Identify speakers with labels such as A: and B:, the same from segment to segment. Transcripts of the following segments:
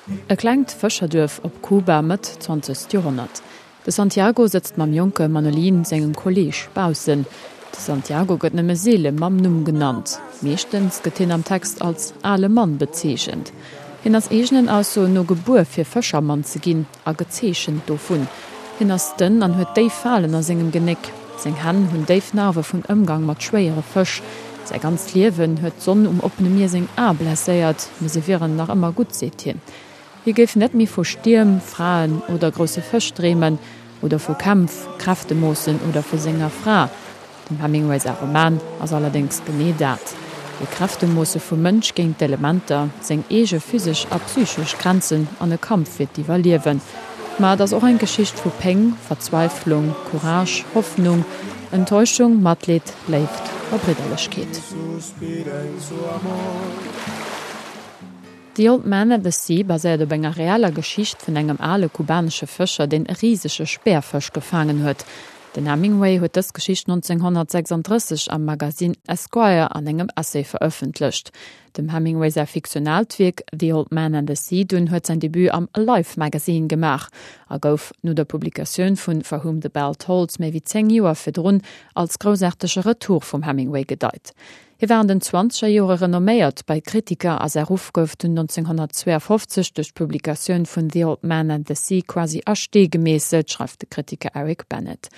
A: E klengt Fëscherduerf op Kuba, Mëtt zwanzegst Joerhonnert. De Santiago sëtzt mam jonke Manolin, sengem Kolleeg, baussen. De Santiago gëtt nëmme seele mam Numm genannt. Meeschtens gëtt hien am Text als ale Mann bezeechent. Hien ass eegenen Aussoen no gebuer fir Fëschermann ze ginn a gezeechent dovun. Hien ass dënn an huet déif Falen a sengem Genéck. Seng Hänn hunn déif Narwe vun Ëmgang mat schwéiere Fësch. Säi ganzt Liewen huet d'Sonn um oppene Mier seng Ae blesséiert, mee se wieren nach ëmmer gutt, seet hien. Hie géif net méi vu Stierm, Fraen oder grousse Fësch dreemen, oder vu Kämpf, Kräftemoossen oder vu senger Fra. Dem Hemingway säi Roman ass allerdéngs genee dat, e Kräftemoosse vum Mënsch géint d'Elementer, seng eege physesch a psychesch Grenzen an e Kampf fir d'Iwwerliewen. Ma et ass och eng Geschicht vu Péng, Verzweiflung, Courage, Hoffnung, Enttäuschung, Matleed, Léift a Bridderlechkeet. The Old Man and the Sea baséiert op enger reeller Geschicht vun engem ale kubanesche Fëscher, deen e risege Speerfësch gefaangen huet. Den Hemingway huet dës Geschicht 1936 am Magasinn Esquire an engem Essay verëffentlecht. Dem Hemingway säi fiktionaalt Wierk The Old Man and the Sea dunn huet säin Debut am Life Magazine gemaach a gouf no der Publikatioun vun For Whom the Bell Tolls méi wéi 10 Joer virdrun als groussaartege Retour vum Hemingway gedeit. Hie war an den zwanzeger Jore renomméiert bei Kritiker a säi Ruff gouf dunn 1952 duerch d'Publikatioun vun The Old Man and the Sea quasi a Stee gemeesselt, schreift de Kritiker Eric Bennett.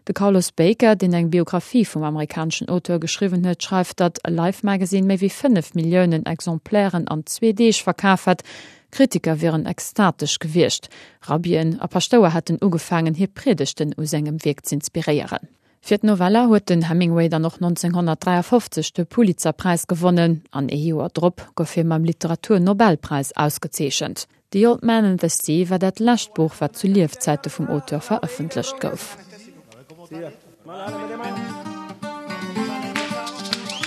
A: De Carlos Baker, deen eng Biographie vum amerikaneschen Auteur geschriwwen huet, schreift, datt Life Magazine méi wéi 5 Milliounen Exemplairen an zwee Deeg verkaf hätt. Kritiker wieren extatesch gewiescht. Rabbien a Paschtouer hätten ugefaangen, hir Priedegten u sengem Wierk z'inspiréieren. Fir d'Novella huet den Hemingway dann och 1953 de Pulitzerpräis gewonnen an ee Joer drop gouf hie mam Literaturnobelpräis ausgezeechent. The Old Man and the Sea war dat lescht Buch, wat zu Liefzäite vum Auteur verëffentlecht gouf.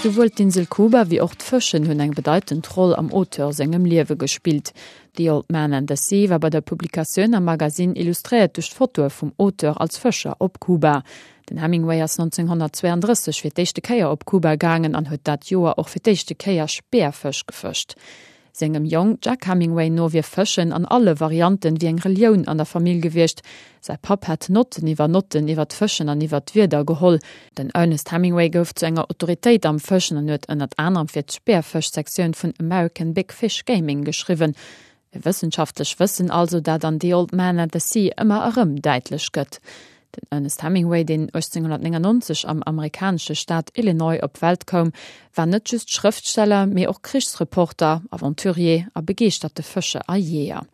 A: Souwuel d'Insel Kuba wéi och d'Fëschen hunn eng bedeitend Roll am Auteur sengem Liewe gespillt. The Old Man and the Sea war bei der Publikatioun am Magasinn illustréiert duerch d'Fotoe vum Auteur als Fëscher op Kuba. Den Hemingway ass 1932 fir d'éischte Kéier op Kuba gaangen an huet dat Joer och fir d'éischte Kéier Speerfësch gefëscht. Sengem Jong Jack Hemingway no wier Fëschen an alle Varianten wéi eng Relioun an der Famill gewiescht. Säi Papp hätt Notten iwwer Notten iwwer d'Fëschen an iwwer d'Wieder geholl. Den Ernest Hemingway gouf zu enger Autoritéit am Fëschen an huet ënnert anerem fir d'Speerfësch-Sektioun vun American Big Fish Gaming geschriwwen. E wëssenschaftlech Wëssen also, dat an The Old Man and the Sea ëmmer erëm däitlech gëtt. Den Ernest Hemingway, deen 1899 am amerikanesche Staat Illinois op d'Welt koum, war net just Schrëftsteller, mee och Krichsreporter, Aventurier a begeeschterte Fëscher a Jeeër.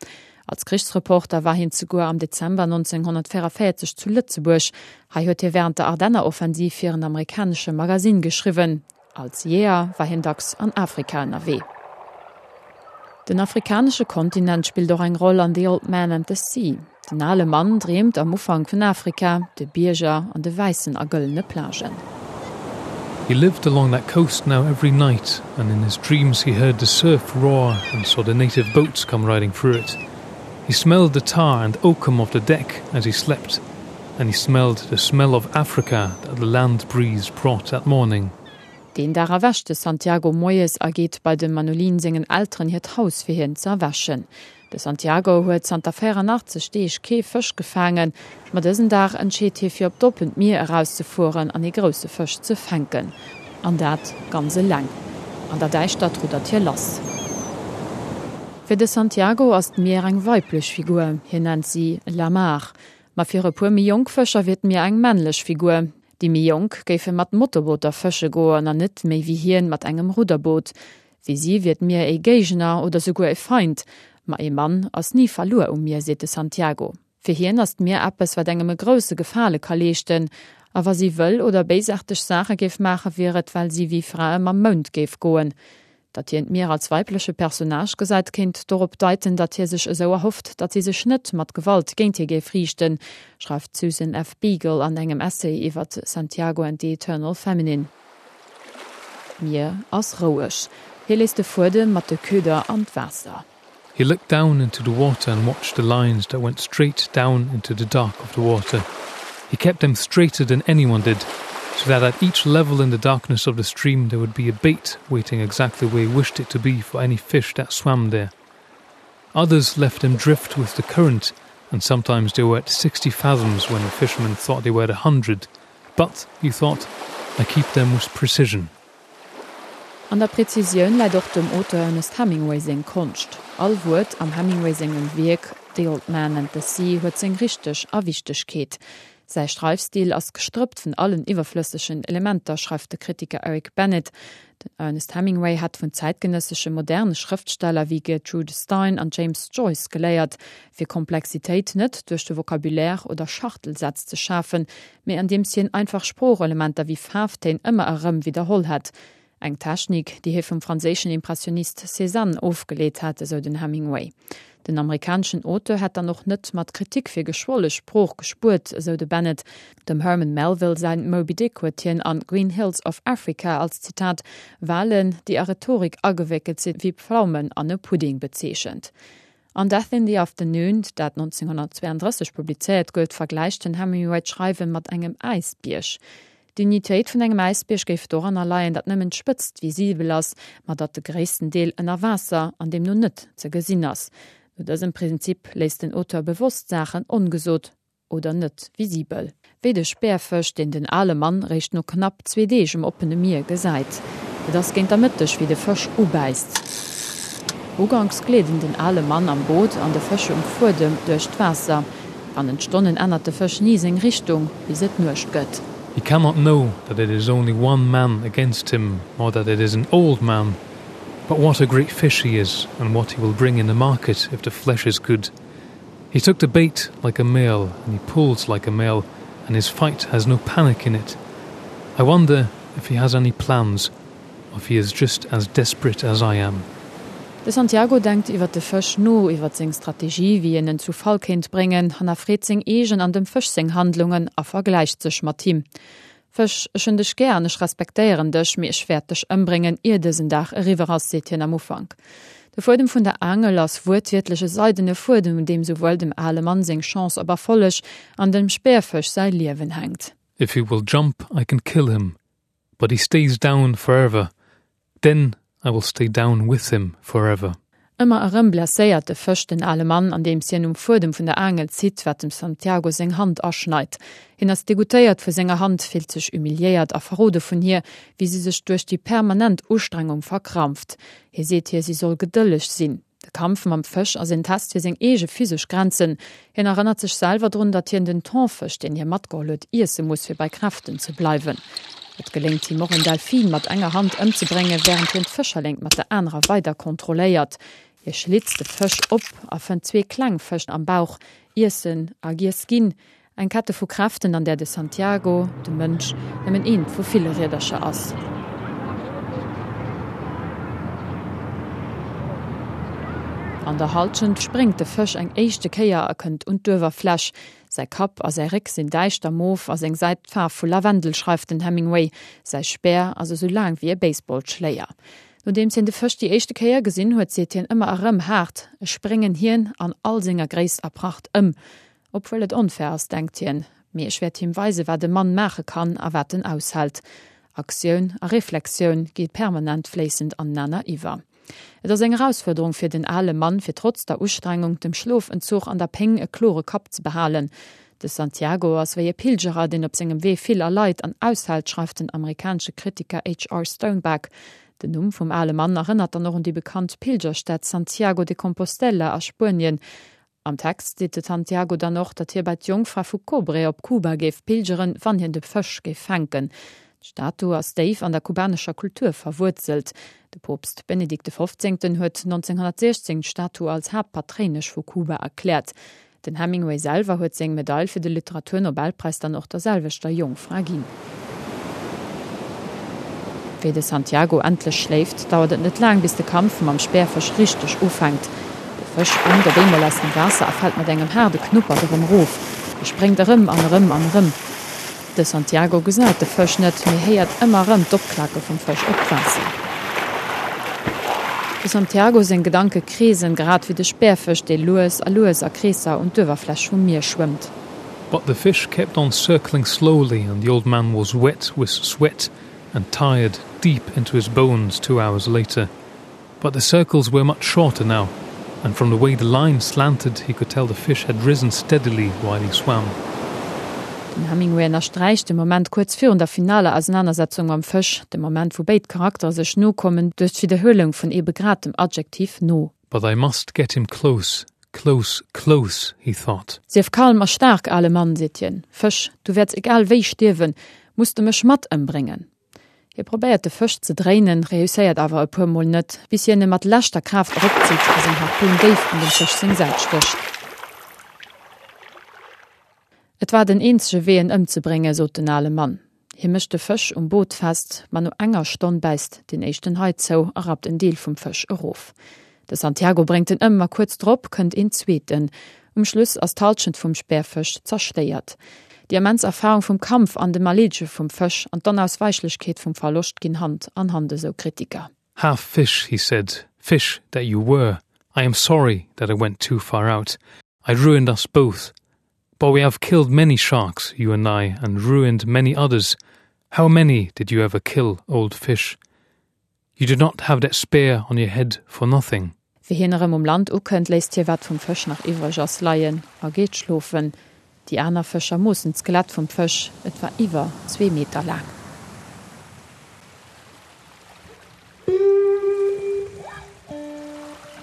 A: Als Krichsreporter war hien zeguer am Dezember 1944 zu Lëtzebuerg. Hei huet hie wärend der Ardenneroffensiv fir en amerikanesche Magasinn geschriwwen. Als Jeeër war hien dacks an Afrika ënnerwee. Den afrikanesche Kontinent spillt och eng Roll an The Old Man and the Sea. Den ale Mann dreemt am Ufank vun Afrika, de Bierger an de wäissen a gëllene Plagen.
B: He lived along that coast now every night, and in his dreams he heard the surf roar and saw the native boats come riding through it. He smelled the tar and oakum of the deck as he slept, and he smelled the smell of Africa that the land breeze brought that morning.
A: Deen Dag erwächt de Santiago moies a geet bei dem Manolin sengen Elteren hiert Haus fir hien ze erwächen. De Santiago huet zanter 84 Deeg kee Fësch gefaangen, ma dësen Dag entscheet hie fir op d'oppent Mier erauszefueren an ee grousse Fësch ze fänken. An dat ganz eleng. An der Däischtert ruddert hie lass. Fir de Santiago ass d'Mier eng weiblech Figur, hien nennt si La Mar. Ma fir e puer méi jonk Fëscher wier d'Mier eng männlech Figur. Déi méi jonk géife mat Motorbooter fësche goen an net méi wéi hien mat engem Rudderboot. Fir si wier d'Mier ee Géigner oder souguer e Feind. Ma ee Mann ass ni verluer um Mier, seet de Santiago. Fir hien ass d'Mier eppes, wat engem e grousse Gefale ka leeschten. A wa si wëll oder béisaarteg Saache géif maachen, wier et, well si wéi Frae mam Mound géif goen. Datt hien d'Mier als weibleche Personnage gesäit, kéint dorop deiten, datt hie sech esou erhofft, datt si sech net mat Gewalt géint hie géif riichten, schreift d'Susan F. Beagle an engem Essay iwwer Santiago and the Eternal Feminine. D'Mier ass roueg. Hie léisst de Fuedem mat de Köder an d'Waasser.
B: He looked down into the water and watched the lines that went straight down into the dark of the water. He kept them straighter than anyone did, so that at each level in the darkness of the stream there would be a bait waiting exactly where he wished it to be for any fish that swam there. Others left them drift with the current, and sometimes they were at 60 fathoms when the fishermen thought they were at 100. But, he thought, I keep them with precision.
A: An der Präzisioun läit och dem Auteur Ernest Hemingway seng Konscht. All Wuert am Hemingway sengem Wierk The Old Man and the Sea huet seng Richteg a Wichtegkeet. Säi Schreifstil ass gestrëppt vun allen iwwerflëssegen Elementer, schreift de Kritiker Eric Bennett. Den Ernest Hemingway hätt vun zäitgenëssesche moderne Schrëftsteller wéi Gertrude Stein an James Joyce geléiert, fir Komplexitéit net duerch de Vocabulaire oder Schachtelsätz ze schafen, mee andeems hien einfach Sproochelementer wéi Faarftéin ëmmer erëm widderholl hätt. Eng Technik, déi hie vum franséischen Impressionist Cézanne ofgeleet hätt, esou den Hemingway. Den amerikaneschen Auteur hätt dann och net mat Kritik fir geschwolle Sprooch gespuert, esou de Bennett. Dem Herman Melville säin Moby Dick huet hien an Green Hills of Africa als, Zitat, Walen, déi a Rhetorik agewéckelt sinn wéi Pflaumen an e Pudding bezeechent. An Death in the Afternoon, dat 1932 publizéiert gouf, vergläicht den Hemingway d'Schreiwe mat engem Äisbierg. D'Dignitéit vun engem Äisbierg géif doranner leien, datt nëmmen d'Spëtzt visibel ass, ma datt de gréissten Deel ënner Waasser an deemno net ze gesinn ass. No dësem Prinzip léisst den Auteur bewosst Saachen ongesot oder net visibel. Wéi de Speerfësch, deen den ale Mann réischt no knapp zwee Deeg um oppene Mier gesäit. Et ass géint der Mëtteg, wéi de Fësch ubäisst. Uganks gleeden den ale Mann am Boot an de Fësch um Fuedem duerch d'Waasser. Bannent Stonnen ännert de Fësch ni seng Richtung, bis et Nuecht gëtt.
B: He cannot know that it is only one man against him or that it is an old man, but what a great fish he is and what he will bring in the market if the flesh is good. He took the bait like a male and he pulls like a male and his fight has no panic in it. I wonder if he has any plans or if he is just as desperate as I am.
A: De Santiago denkt iwwer de Fësch no, iwwer seng Strategie, wéi en en zu Fall kéint bréngen, hannerfreet seng eegen an dem Fësch seng Handlungen a vergläicht sech mat him. Fësch, ech hunn dech gär an ech respektéieren dech, mee ech wäert dech ëmbréngen, ier dësen Dag eriwwer ass, seet hien am Ufank. De Fuedem vun der Aangel ass wuertwiertlech e seidene Fuedem, un deem souwuel dem ale Mann seng Chance op Erfolleg an dem Speerfësch säi Liewen hänkt.
B: If he will jump, I can kill him, but he stays down forever, then I will stay down with him forever.
A: Ëmmer erëm blesséiert de Fësch den ale Mann, andeems hien um Fuedem vun der Aangel zitt, wat dem Santiago seng Hand aschneit. Hien ass degoûtéiert vu senger Hand, fillt sech humiliéiert a verrode vun hir, wéi si sech duerch déi permanent Ustrengung verkrampft. Hie seet hir, si soll gedëlleg sinn. De Kampf mam Fësch ass en Test fir seng eege physesch Grenzen. Hien erënnert sech selwer drun, datt hien den Thonfësch, deen hie matgeholl huet, iesse muss, fir bei Kräften ze bleiwen. Et geléngt him och, en Delfin mat enger Hand ëmzebréngen, wärend hien d'Fëscherléngt mat der anerer weider kontrolléiert. Hie schlitzt de Fësch op a fënnt zwee kleng Fësch am Bauch. Iessen a giess ginn. Eng Kette vu Kräften, an där de Santiago, de Mënsch, nëmmen eent vu ville Riedercher ass. An der Halschent spréngt de Fësch eng éischte Kéier a kënnt un d'Uewerfläch. Säi Kapp a säi Réck sinn däischter mof a seng Säit d'Faarf vu Lavendel, schreift den Hemingway. Säi Speer ass esou laang wéi e Baseballschléier. Nodeems hien de Fësch déi éischte Kéier gesinn huet, seet hien ëmmer erëm haart, Ech spréngen hien an all senger Gréisst a Pracht ëm. Obwuel et onfair ass, denkt hien, mee ech wäert him weisen, wat e Mann maache kann a wat en aushält. Aktioun a Reflexioun gi permanent fléissend anenaner iwwer. Et ass eng Erausfuerderung fir den ale Mann, fir trotz der Ustrengung, dem Schlofentzuch an der Péng e klore Kapp ze behalen. De Santiago ass wéi e Pilgerer, deen op sengem Wee vill erleit an aushält, schreift den amerikanesche Kritiker HR. Stoneback. Den Numm vum ale Mann erënnert dann och un déi bekannt Pilgerstad Santiago de Compostela a Spuenien. Am Text seet de Santiago dann och, datt hie bei d'Jongfra vu Cobre op Kuba géif pilgeren, wann hien de Fësch géif fänken. D'Statu ass déif an der kubanescher Kultur verwuerzelt. De Poopst Benedikt de Fofzéngten huet 1916 d'Statu als Haaptpatréinesch vu Kuba erkläert. Den Hemingway selwer huet seng Medail fir de Literaturnobelpräis dann och der selwechter Jongfra ginn. Wéi de Santiago endlech schléift, dauert et net laang, bis de Kampf mam Speerfësch richteg ufänkt. De Fësch spréngt op eemol aus dem Waasser a fält mat engem haarde Knuppert erëm erof. E spréngt erëm an erëm an erëm. De Santiago gesäit de Fësch net, mee héiert ëmmer erëm d'Opklake vum Fësch op d'Waasser. De Santiago seng Gedanke kreesen, grad wéi de Speerfësch, dee lues a lues a Kreesser un d'Uewerfläch vum Mier schwëmmt.
B: But the fish kept on circling slowly and the old man was wet with sweat and tired deep into his bones two hours later. But the circles were much shorter now. And from the way the line slanted, he could tell the fish had risen steadily while he swam.
A: Den Hemingway ënnersträicht de Moment kuerz virun der finaler Ausenanersetzung mam Fësch, de Moment wou béid Charaktere sech no kommen, duerch d'Widderhuelung vun ebe grad dem Adjektiv no.
B: But I must get him close, close, close, he thought.
A: Sief kalm a staark, ale Mann, seet hien, Fësch, du wäerts egal wéi stierwen, muss de mech mat ëmbréngen. Hie probéiert de Fësch ze dréinen, reusséiert awer e puer Mol net, bis hien e mat leschter Kraaft eropzitt a seng Harpun déif an dem Fësch seng Säit stécht. Et war den eenzege Wee en ëmzebréngen, sot den ale Mann. Hie mécht de Fësch um Boot fest, ma no enger Stonn bäisst deen éischten Hai zou a rappt en Deel vum Fësch erof. De Santiago bréngt en ëm, ma kuerz drop kënnt een zweeten. Um Schluss ass d'Hallschent vum Speerfësch zerstéiert. Déi immens Erfarung vum Kampf an dem Erleedege vum Fësch an d'Onausweichlechkeet vum Verloscht ginn Hand an Hand, esou Kritiker.
B: Half fish, he said, fish that you were. I am sorry that I went too far out. I ruined us both. But we have killed many sharks, you and I, and ruined many others. How many did you ever kill, old fish? You do not have that spear on your head for nothing.
A: Wéi hien erëm um Land ukënnt, léisst hie wat vum Fësch nach iwwreg ass leien a geet schlofen. Déi aner Fëscher moossen d'Skelett vum Fësch, et war iwwer zwee Meter laang.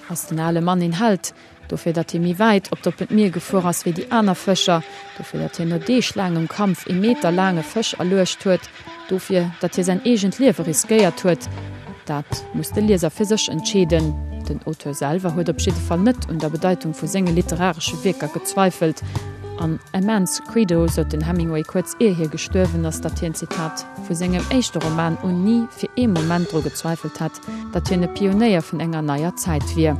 A: Ass den ale Mann een Held? Dofir, datt hie méi wäit op d'oppent Mier gefuer ass wéi déi aner Fëscher, dofir, datt hien no deeglaangem Kampf ee Meter laange Fësch erluecht huet, dofir, datt hie säin eegent Liewe riskéiert huet, dat muss de Lieser fir sech entscheeden. Den Auteur selwer huet op jidde Fall net un der Bedeitung vu senge literaresche Wierker gezweifelt. An A Man's Credo sot den Hemingway kuerz ier hie gestuerwen ass, datt hien, Zitat, vu sengem éischte Roman un ni fir ee Moment dru gezweifelt hätt, datt hien e Pionéier vun enger neier Zäit wier.